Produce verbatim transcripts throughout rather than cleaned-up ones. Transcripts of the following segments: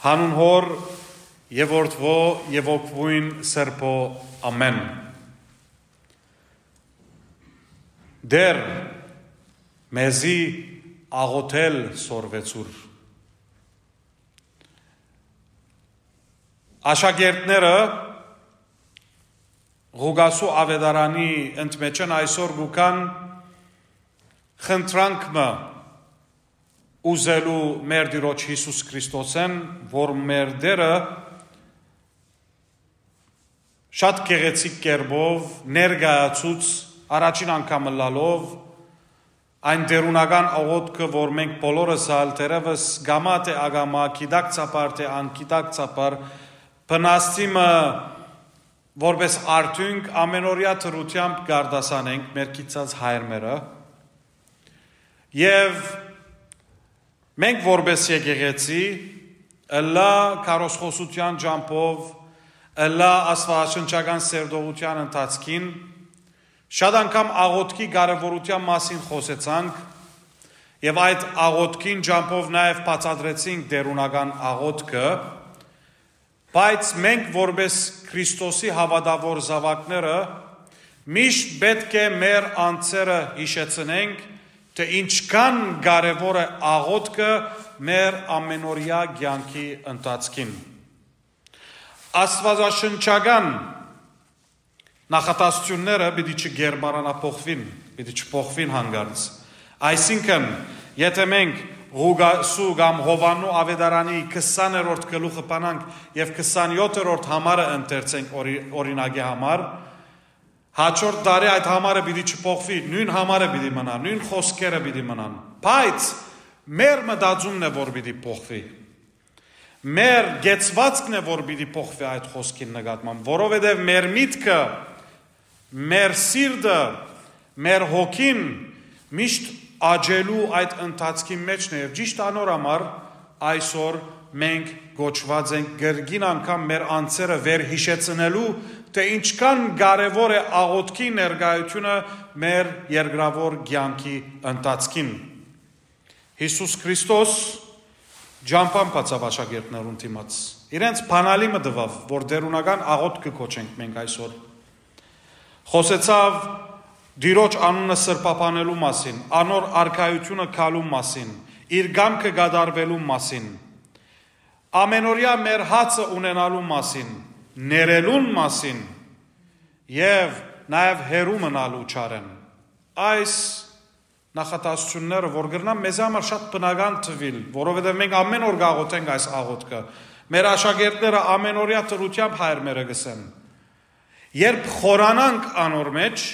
Հանուն Հօր եւ Որդուոյ եւ Հոգւոյն Սրբոյ։ Ամէն։ Տէր, մեզի աղոթել սորվեցուր։ Աշակերտները Ղուկասու աւետարանի ընդմէջէն այսօր կու գան խնդրանք մը ուզելու մեր Տիրոջ Յիսուս Քրիստոսէն, որ մեր Տէրը շատ գեղեցիկ կերպով ներկայացուց առաջին անգամ ըլլալով այն տէրունական աղօթքը, որ մենք բոլորս ալ թերեւս կամայ թէ ակամայ, գիտակցաբար թէ անգիտակցաբար, բնաստի մը որպէս արդիւնք ամենօրեայ դրութեամբ կ'արտասանենք մեր գիտցած հայրմերը։ Եւ մենք որպէս եկեղեցի, ըլլայ քարոզխօսութեան ճամբով, ըլլայ աստուածաշնչական սերտողութեան ընթացքին, շատ անգամ աղօթքի կարեւորութեան մասին խօսեցանք եւ այդ աղօթքին ճամբով նաեւ բացատրեցինք տէրունական աղօթքը, բայց մենք որպէս Քրիստոսի հաւատաւոր զաւակները միշտ պէտք է մեր անձերը յիշեցնենք, թէ ինչքան կարեւոր է աղօթքը մեր ամենօրեայ կեանքի ընթացքին։ Աստուածաշնչական նախատասությունները պիտի չկերպարանափոխուին, պիտի չփոխուին հանկարծ։ Այսինքն, եթէ մենք Ղուկասու կամ Յովհաննու աւետարանի քսաներորդ գլուխը բանանք եւ քսանյոթերորդ համարը ընթերցենք օրի-, օրինակի համար, հաջորդ տարի այդ համարը պիտի չփոխուի, նոյն համարը պիտի մնայ, նոյն խօսքերը պիտի մնան, բայց մեր մտածումն է, որ պիտի փոխուի։ Մեր կեցուածքն է, որ պիտի փոխուի այդ խօսքին նկատմամբ, որովհետեւ մեր միտքը, մեր սիրտը, մեր հոգին միշտ աճելու այդ ընթացքին մէջն է եւ ճիշտ անոր համար այսօր մենք կոչուած ենք կրկին անգամ մեր անձերը վերհիշեցնելու, թէ ինչքան կարեւոր է աղօթքի ներկայությունը մեր երկրաւոր կեանքի ընթացքին։ Յիսուս Քրիստոս ճամբան բացաւ աշակերտներուն դիմաց։ Իրենց բանալի մը տուաւ, որ տէրունական աղօթք կը կոչենք մենք այսօր։ Խօսեցաւ Տիրոջ անունը սրբաբանելու մասին, անոր արքայությունը գալու մասին, իր կամքը կատարվելու մասին, ամենօրեայ մեր հացը ունենալու մասին, ներելուն մասին եւ նաեւ հեռու մնալու չարէն։ Այս նախատասությունները, որ կրնան մեզի համար շատ բնական թուիլ, որովհետեւ մենք ամէն օր կաղոթենք այս աղոթքը, մեր աշակերտները ամենօրեայ դրութեամբ հայրմերը կ'ըսեն։ Երբ խորանանք անոր մէջ,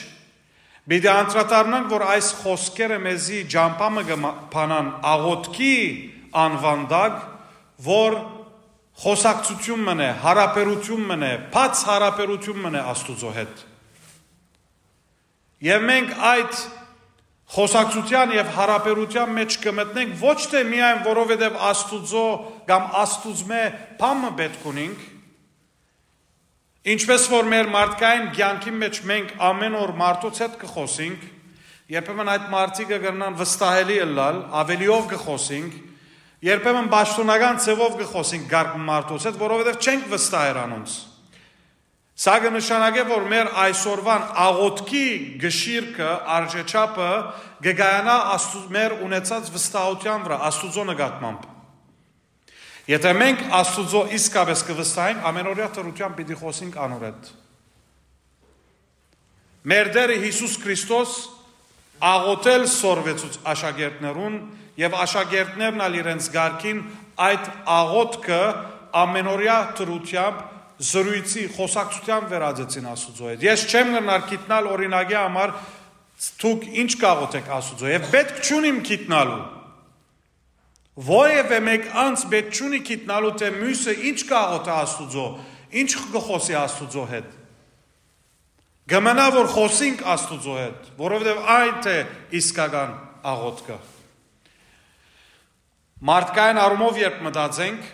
պիտի անդրադառնանք, որ այս խօսքերը մեզի ճամբայ մը կը մա-, բանան աղոթքի անուան տակ, որ խօսակցութիւն մըն է, յարաբերութիւն մըն է, բաց յարաբերութիւն մըն է Աստուծոյ հետ։ Եւ մենք այդ խօսակցութեան եւ յարաբերութեան մէջ կը մտնենք ոչ թէ միայն որովհետեւ Աստուծոյ կամ Աստուծմէ բան մը պէտք ունինք, ինչպէս որ մեր մարդկային կեանքին մէջ մենք ամէն օր մարդոց հետ կը խօսինք, երբեմն այդ մարդիկը կրնան վստահելի ըլլալ, աւելիով կը խօսինք, երբեմն պաշտօնական ձեւով կը խօսինք կարգ մարդոց հետ, որովհետեւ չենք վստահեր անոնց։ Սա կը նշանակէ, որ մեր այսօրվան աղոթքի գշիրքը, արժեչափը կը կայանայ Աստու-, մեր ունեցած վստահութեան վրայ, Աստուծոյ նկատմամբ։ Եթէ մենք Աստուծոյ իսկապէս կը վստահենք, ամենօրեայ դրութեամբ պիտի խօսենք անոր հետ։ Մեր Տէրը Յիսուս Քրիստոս աղոթել սորվեցուց աշակերտներուն եւ աշակերտներն ալ իրենց կարգին այդ աղոթքը ամենօրեայ դրութեամբ զրոյցի, խօսակցութեան վերածեցին Աստուծոյ հետ։ Ես չեմ կրնար գիտնալ օրինակի համար դուք ինչ կաղոթեք Աստուծոյ եւ պէտք չունիմ գիտնալու։ Որեւէ մէկ անձ պէտք չունի գիտնալու, թէ միւսը ինչ կաղոթէ Աստուծոյ, ինչ կը խօսի Աստուծոյ հետ։ Կը մնայ, որ խօսինք Աստուծոյ հետ, որովհետեւ այդ է իսկական աղոթքը։ Մարդկային առումով երբ մտածենք,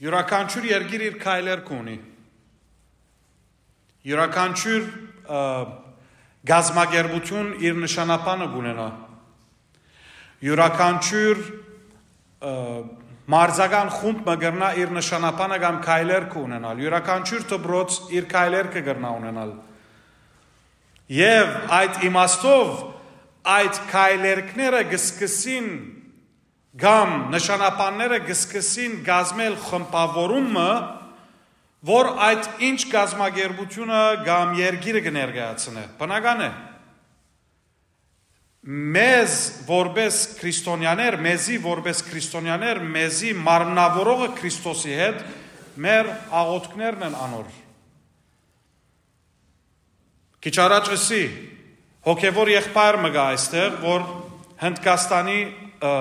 իւրաքանչիւր երկիր իր քայլեր կունի։ Իւրաքանչիւր, ը, գազམ-ակերպութիւն իր նշանաբանը կունենայ։ Իւրաքանչիւր, ը, մարզական խումբ մը կրնայ իր նշանապանը կամ քայլերգը ունենալ, իւրաքանչիւր դպրոց իր քայլերգը կրնայ ունենալ։ Եւ այդ իմաստով այդ քայլերգները կը սկսին կամ նշանապանները կը սկսին կազմել խմբաւորում մը, որ այդ ինչ կազմակերպությունը կամ երկիրը կը ներկայացնէ։ Բնական է, մեզ որպես քրիստոնյաներ, մեզի որպես քրիստոնյաներ, մեզի մարմնավորողը Քրիստոսի հետ մեր աղօթքներն են անոր։ Քիչ առաջ ըսի, հոգեվոր եղբայր մը կայ այստեղ, որ Հնդկաստանի, ը,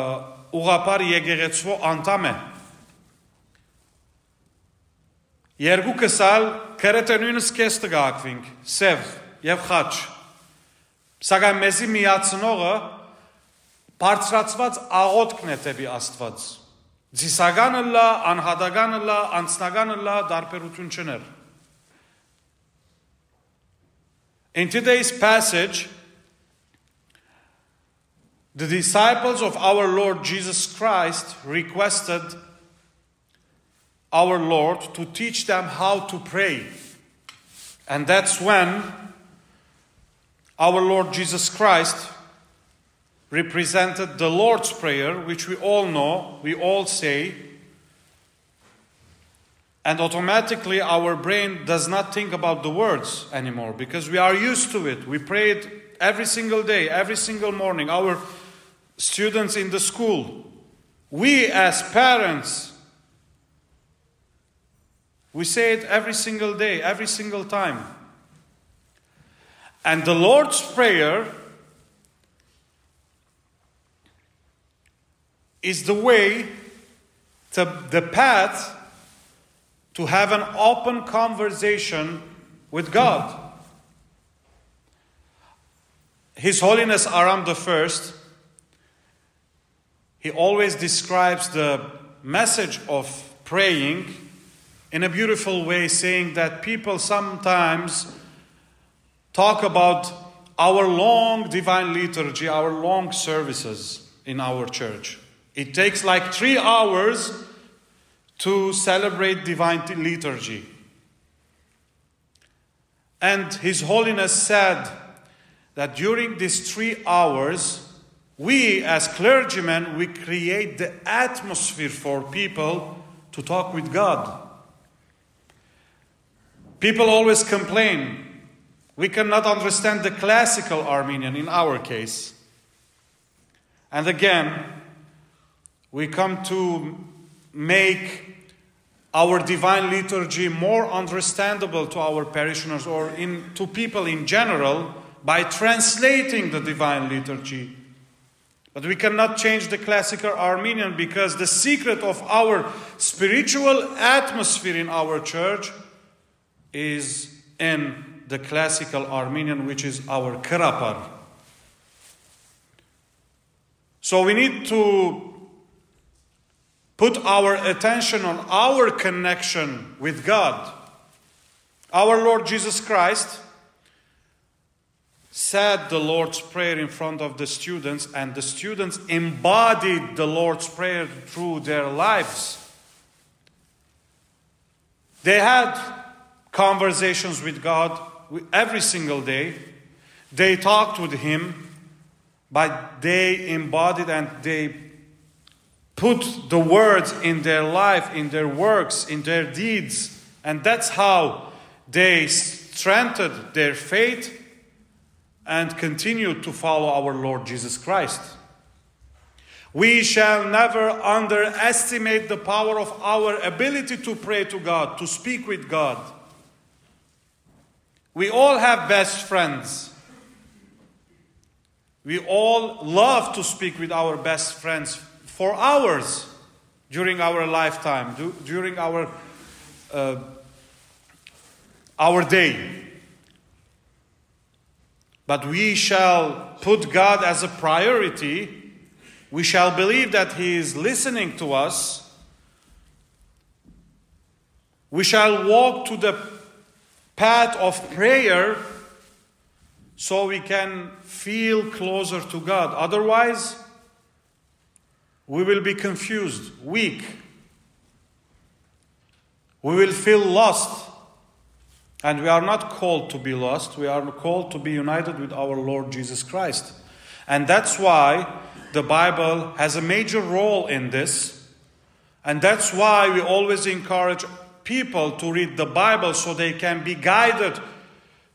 ուղղափառ եկեղեցւոյ անդամ է։ Երկուքս ալ կրեթէ նոյն սքեստը կը հագուինք, սեւ եւ խաչ։ Սակայն մեզի միացնողը բարձրացուած աղօթքն է դէպի Աստուած։ Ծիսական ըլլայ, անհատական ըլլայ, անձնական ըլլայ, տարբերութիւն չունի։ In today's passage, the disciples of our Lord Jesus Christ requested our Lord to teach them how to pray. And that's when our Lord Jesus Christ represented the Lord's Prayer, which we all know, we all say, and automatically our brain does not think about the words anymore because we are used to it. We pray it every single day, every single morning. Our students in the school, we as parents, we say it every single day, every single time. And the Lord's Prayer is the way, to, the path to have an open conversation with God. His Holiness Aram the First, he always describes the message of praying in a beautiful way, saying that people sometimes talk about our long divine liturgy, our long services in our church. It takes like three hours to celebrate divine t-, liturgy. And His Holiness said that during these three hours, we as clergymen, we create the atmosphere for people to talk with God. People always complain, "We cannot understand the classical Armenian in our case." And again, we come to make our divine liturgy more understandable to our parishioners or in, to people in general by translating the divine liturgy. But we cannot change the classical Armenian because the secret of our spiritual atmosphere in our church is in the classical Armenian, which is our Kırapar. So we need to put our attention on our connection with God. Our Lord Jesus Christ said the Lord's Prayer in front of the students, and the students embodied the Lord's Prayer through their lives. They had conversations with God every single day. They talked with Him, but they embodied and they put the words in their life, in their works, in their deeds. And that's how they strengthened their faith and continued to follow our Lord Jesus Christ. We shall never underestimate the power of our ability to pray to God, to speak with God. We all have best friends. We all love to speak with our best friends for hours during our lifetime, du-, during our, uh, our day. But we shall put God as a priority. We shall believe that He is listening to us. We shall walk to the path of prayer so we can feel closer to God. Otherwise, We will be confused, weak. We will feel lost. And we are not called to be lost. We are called to be united with our Lord Jesus Christ. And that's why the Bible has a major role in this. And that's why we always encourage people to read the Bible so they can be guided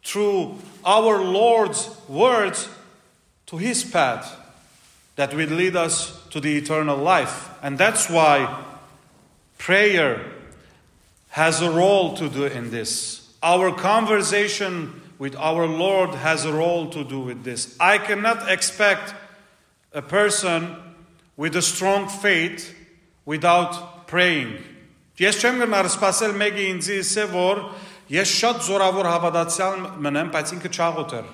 through our Lord's words to his path that will lead us to the eternal life. And that's why prayer has a role to do in this. Our conversation with our Lord has a role to do with this. I cannot expect a person with a strong faith without praying. Ես չեմ գնար սպասել մեկը ինձի ըսէ, որ ես շատ զորավոր հաւատացեալ մնեմ, բայց ինքը չաղոթ էր։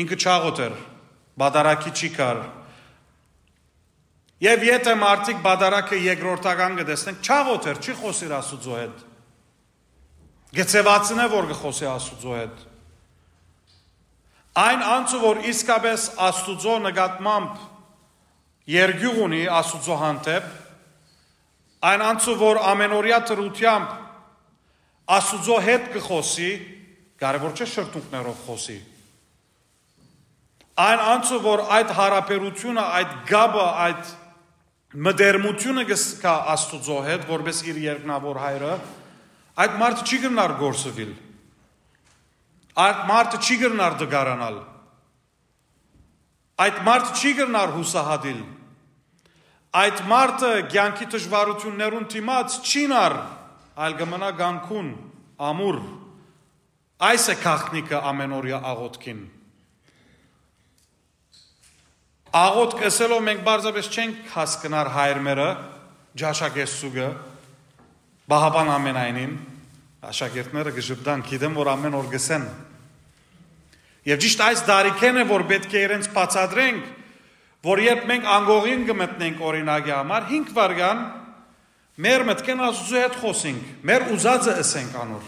Ինքը չաղոթ էր, պատարագի չի կար։ Եւ եթե մարդիկ պատարագը երկրորդական կը տեսնեն, չաղոթ էր, չի խօսիր Աստուծոյ հետ։ Կը ձեւացնէ, որ կը խօսի Աստուծոյ հետ։ Այն անձը, որ իսկապես Աստուծոյ նկատմամբ երկիւղ ունի Աստուծոյ հանդէպ, այն անձը, որ ամենօրեայ դրութեամբ Աստուծոյ հետ կը խօսի, կարեւոր չէ շրթունքներով խօսի։ Այն անձը, որ այդ յարաբերութիւնը, այդ կապը, այդ մտերմութիւնը կը զգայ Աստուծոյ հետ, որպէս իր երկնաւոր հայրը, այդ մարդը չի կրնար կորսուիլ։ Այդ մարդը չի կրնար տկարանալ։ Այդ մարդը չի կրնար յուսահատիլ։ Այդ մարդը կեանքի դժուարութիւններուն դիմաց չի նար, այլ կը մնայ կանգուն, ամուր։ Այս է գաղտնիքը ամենօրեայ աղօթքին։ Աղօթք ըսելով մենք պարզապէս չենք հասկնար հայրմերը, ճաշակերտցուկը, պահապան ամենայնին, աշակերտները կը ժպտան, գիտեմ, որ ամեն օր կ'ըսեն։ Եւ ճիշդ այս տարիքէն է, որ պէտք է իրենց բացատրենք, որ երբ մենք անկողին կը մտնենք, օրինակի համար, հինգ վայրկեան մեր մտքէն Աստուծոյ հետ խօսենք, մեր ուզածը ըսենք անոր։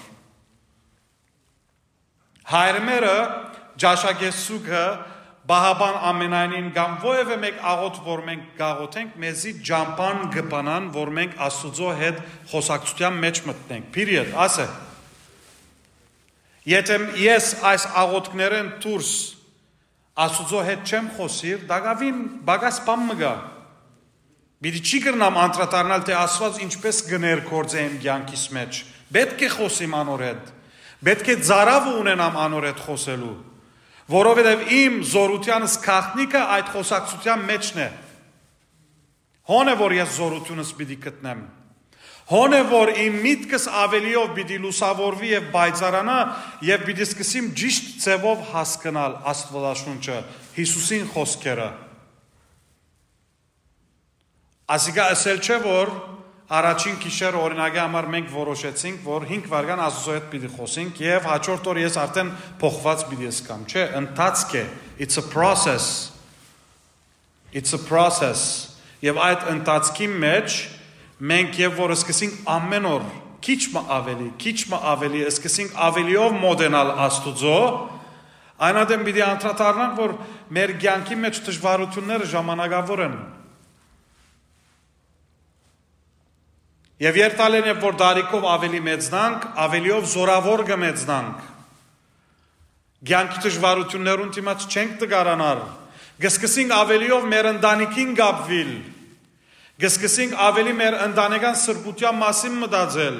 Հայրմերը, ճաշակերտցուկը, պահապան ամենայնին կամ որեւէ մէկ աղօթք, որ մենք կաղօթենք, մեզի ճամբան կը բանան, որ մենք Աստուծոյ հետ խօսակցութեան մէջ մտնենք։ Period, ասէ։ Եթե ես այս աղօթքներէն դուրս Աստուծոյ հետ չեմ խօսիր, տակաւին պակաս բան մը կայ։ Պիտի չի կրնամ անդրադառնալ, թէ Աստուած ինչպէս կը ներգործէ իմ կեանքիս մէջ։ Պէտք է խօսիմ անոր հետ։ Պէտք է ծարաւը ունենամ անոր հետ խօսելու, որովհետեւ իմ զօրութեանս գաղտնիքը այդ խօսակցութեան մէջն է։ Հոն է, որ ես զօրութիւնս պիտի գտնեմ։ Հոն է, որ իմ միտքս աւելիով պիտի լուսաւորուի եւ պայծառանայ եւ պիտի սկսեմ ճիշդ ձեւով հասկնալ Աստուածաշունչը, Յիսուսին խօսքերը։ Ասիկա ըսել չէ, որ առաջին գիշերը, օրինակի համար, մենք որոշեցինք, որ հինգ վայրկեան Աստուծոյ հետ պիտի խօսենք եւ հաջորդ օր ես արդեն փոխուած պիտի զգամ։ Չէ, ընթացք է, it's a process. It's a process. Եւ այդ ընթացքի մէջ մենք եւ որ սկսենք ամեն օր քիչ մը ավելի, քիչ մը ավելի, սկսենք ավելիով մոտենալ Աստուծոյ, այն ատեն պիտի անդրադառնանք, որ մեր կեանքի մէջ դժուարութիւնները ժամանակաւոր են։ Եւ երթալեն եւ որ տարիքով ավելի մեծնանք, ավելիով զորաւոր կը մեծնանք։ Կեանքի դժուարութիւններուն դիմաց չենք տկարանար։ Կը սկսենք ավելիով մեր ընտանիքին կապուիլ։ Կը սկսենք ավելի մեր ընտանեկան սրբութեան մասին մտածել։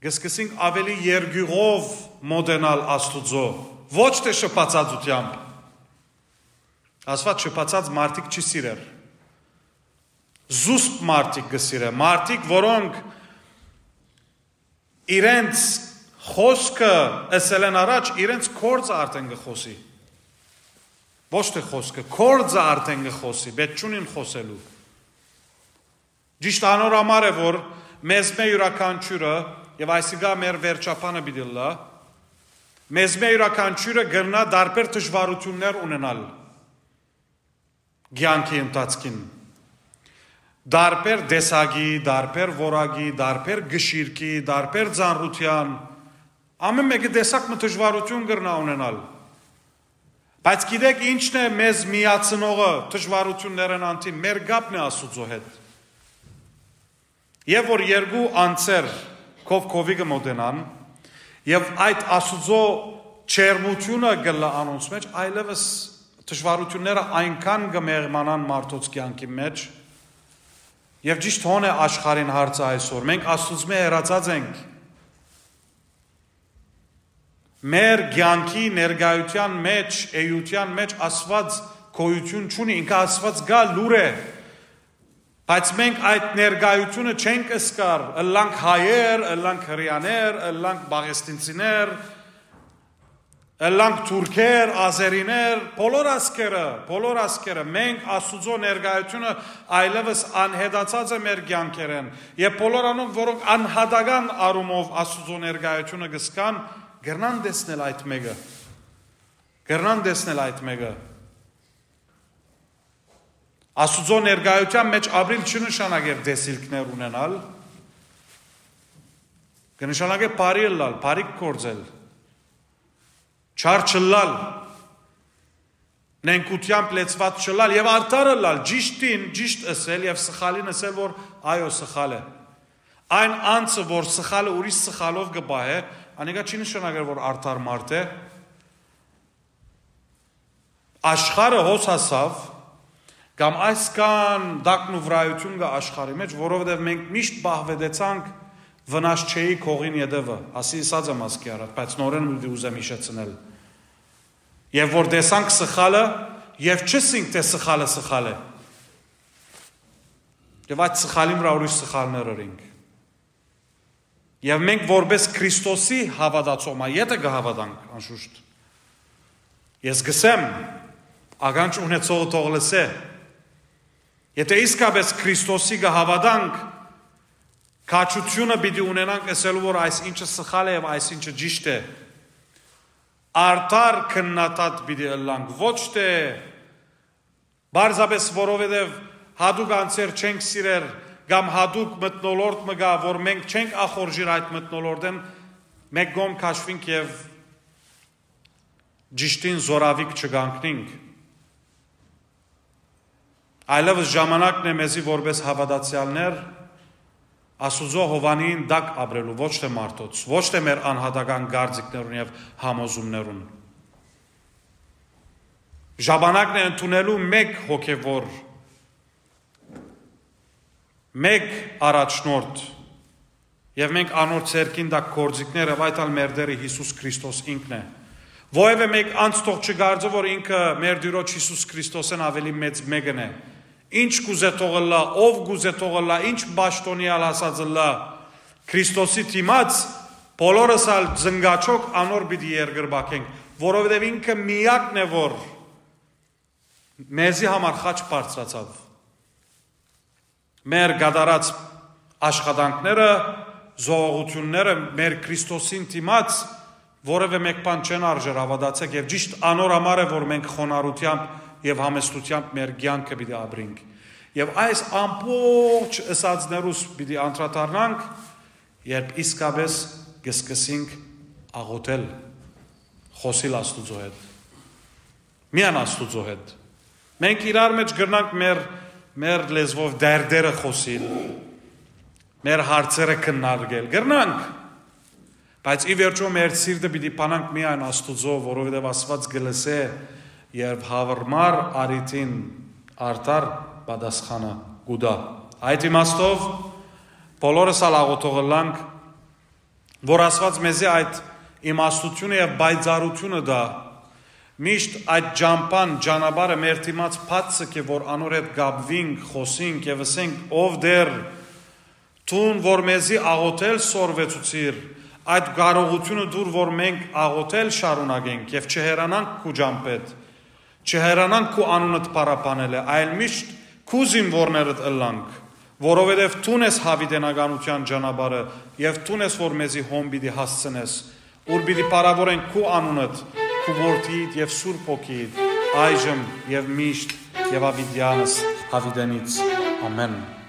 Կը սկսենք ավելի երկիւղով մոտենալ Աստուծոյ, ոչ թէ շփացածութեամբ։ Աստուած շփացած մարդիկ չի սիրեր։ Զուսպ մարդիկ կը սիրէ, մարդիկ, որոնք իրենց խօսքը ըսելէն առաջ իրենց գործը արդեն կը խօսի։ Ոչ թէ խօսքը, գործը արդեն կը խօսի, պէտք չունին խօսելու։ Ճիշդ անոր համար է, որ մեզմէ իւրաքանչիւրը, եւ այսիկա մեր վերջաբանը պիտի ըլլայ, մեզմէ իւրաքանչիւրը կրնայ տարբեր դժուարութիւններ ունենալ կեանքի ընթացքին։ Տարբեր տեսակի, տարբեր որակի, տարբեր կշիռքի, տարբեր ծանրութեան, ամէն մէկը տեսակ մը դժուարութիւն կրնայ ունենալ։ Բայց գիտեք ի՞նչն է մեզ միացնողը դժուարութիւններէն անդին, մեր կապն է Աստուծոյ հետ։ Եւ որ երկու անձեր քով քովի կը մօտենան, եւ այդ Աստուծոյ ջերմութիւնը կ'ըլլայ անոնց մէջ, այլեւս դժուարութիւնները այնքան կը մեղմանան մարդոց կեանքին մէջ, եւ ճիշդ հոն է աշխարհին հարցը այսօր։ Մենք Աստուծմէ հեռացած ենք։ Մեր կեանքի ներկայութեան մէջ, էութեան մէջ Աստուած գոյութիւն չունի, ինքը Աստուած կայ, լուր է, բայց մենք այդ ներկայութիւնը չենք զգար, ըլլանք հայեր, ըլլանք հրեաներ, ըլլանք պաղեստինցիներ, ըլլանք թուրքեր, ազերիներ, բոլոր ազգերը, բոլոր ազգերը, մենք Աստուծոյ ներկայութիւնը այլեւս անհետացած է մեր կեանքերէն, եւ բոլոր անոնք, որոնք անհատական առումով Աստուծոյ ներկայութիւնը կ'զգան, կրնան տեսնել այդ մէկը, կրնան տեսնել այդ մէկը։ Աստուծոյ ներկայութեան մէջ ապրիլ չի նշանակեր տեսիլքներ ունենալ, կը նշանակէ բարի ըլլալ, բարիք գործել, չար չըլլալ, նենգութեամբ լեցուած չըլլալ եւ արդար ըլլալ, ճիշդին ճիշդ ըսել եւ սխալին ըսել, որ այո, սխալ է։ Այն անձը, որ սխալը ուրիշ սխալով կը պահէ, անիկա չի նշանակեր, որ արդար մարդ է։ Աշխարհը հոս հասաւ, կամ այսքան տակնուվրայութիւն կայ աշխարհի մէջ, որովհետեւ մենք միշտ պահուետեցանք վնաս չէի կողին ետևը, ասի ըսած եմ ասկի առաջ, բայց նորէն պիտի ուզեմ յիշեցնել։ Եւ որ տեսանք սխալը, եւ չըսինք, թէ սխալը սխալ է։ Եւ այդ սխալին վրայ ուրիշ սխալներ ըրինք։ Եւ մենք որպէս Քրիստոսի հաւատացող մայ, եթէ կը հաւատանք, անշուշտ, ես կսեմ, ականջ ունեցողը թող լսէ, եթէ իսկապէս Քրիստոսի կը հաւատանք, քաջութիւնը պիտի ունենանք ըսելու, որ այս ինչը սխալ է եւ այս ինչը ճիշդ է։ Արդար քննադատ պիտի ըլլանք, ոչ թէ պարզապէս որովհետեւ յատուկ անձեր չենք սիրեր կամ յատուկ մթնոլորտ մը կայ, որ մենք չենք ախորժիր այդ մթնոլորտէն, մէկ կողմ քաշուինք եւ ճիշդին զօրավիգ չկանգնինք։ Այլեւս ժամանակն է մեզի որպէս հաւատացեալներ Աստուծոյ հովանին տակ ապրելու, ոչ թէ մարդոց, ոչ թէ մեր անհատական կարծիքներուն եւ համոզումներուն։ Ժամանակն է ընդունելու մէկ հոգեվոր, մէկ առաջնորդ, եւ մենք անոր ձեռքին տակ գործիքներ, եւ այդ ալ մեր Տէրը Յիսուս Քրիստոս ինքն է։ Որեւէ մէկ անձ թող չկարծէ, որ ինքը մեր Տիրոջ Յիսուս Քրիստոսէն աւելի մեծ մէկն է։ Ինչ կուզէ թող ըլլայ, ով կուզէ թող ըլլայ, ինչ պաշտօնի ալ հասած ըլլայ Քրիստոսի դիմաց, բոլորս ալ զնգաչոք անոր պիտի երկրպագենք, որովհետեւ ինքը միակն է, որ մեզի համար խաչ բարձրացաւ։ Մեր կատարած աշխատանքները, զոհողութիւնները մեր Քրիստոսին դիմաց որեւէ մէկ բան չեն արժեր, հաւատացէք, եւ ճիշդ անոր համար է, որ մենք խոնարհութեամբ եւ համեստութեամբ մեր կեանքը պիտի ապրինք։ Եւ այս ամբողջ ըսածներուս պիտի անդրադառնանք, երբ իսկապէս կը սկսենք աղոթել, խօսիլ Աստուծոյ հետ, միայն Աստուծոյ հետ։ Մենք իրար մէջ կրնանք մեր, մեր լեզուով դերդերը խօսիլ, մեր հարցերը քննարկել, կրնանք, բայց ի վերջոյ մեր սիրտը պիտի բանանք միայն Աստուծոյ, որովհետեւ Աստուած կը լսէ եւ յարմար առիթին արդար պատասխանը կու տայ։ Այդ իմաստով բոլորս ալ աղոթող ըլլանք, որ Աստուած մեզի այդ իմաստութիւնը եւ պայծառութիւնը տայ, միշտ այդ ճամբան, ճանապարհը մեր դիմաց բաց ձգէ, որ անոր հետ կապուինք, խօսինք եւ ըսենք. «Ով Տէր, դուն որ մեզի աղոթել սորվեցուցիր, այդ կարողութիւնը տուր, որ մենք աղոթել շարունակենք եւ չհեռանանք քու ճամբէդ, չհեռանանք քու անունդ փառաբանելէ, այլ միշտ քու զինուորներդ ըլլանք, որովհետեւ դուն ես յաւիտենականութեան ճանապարհը եւ դուն ես, որ մեզի հոն պիտի հասցնես, ուր պիտի փառաւորենք քու անունդ, քու Որդիիդ եւ Սուրբ Հոգիիդ, այժմ եւ միշտ եւ յաւիտեանս յաւիտենից։ Ամէն»։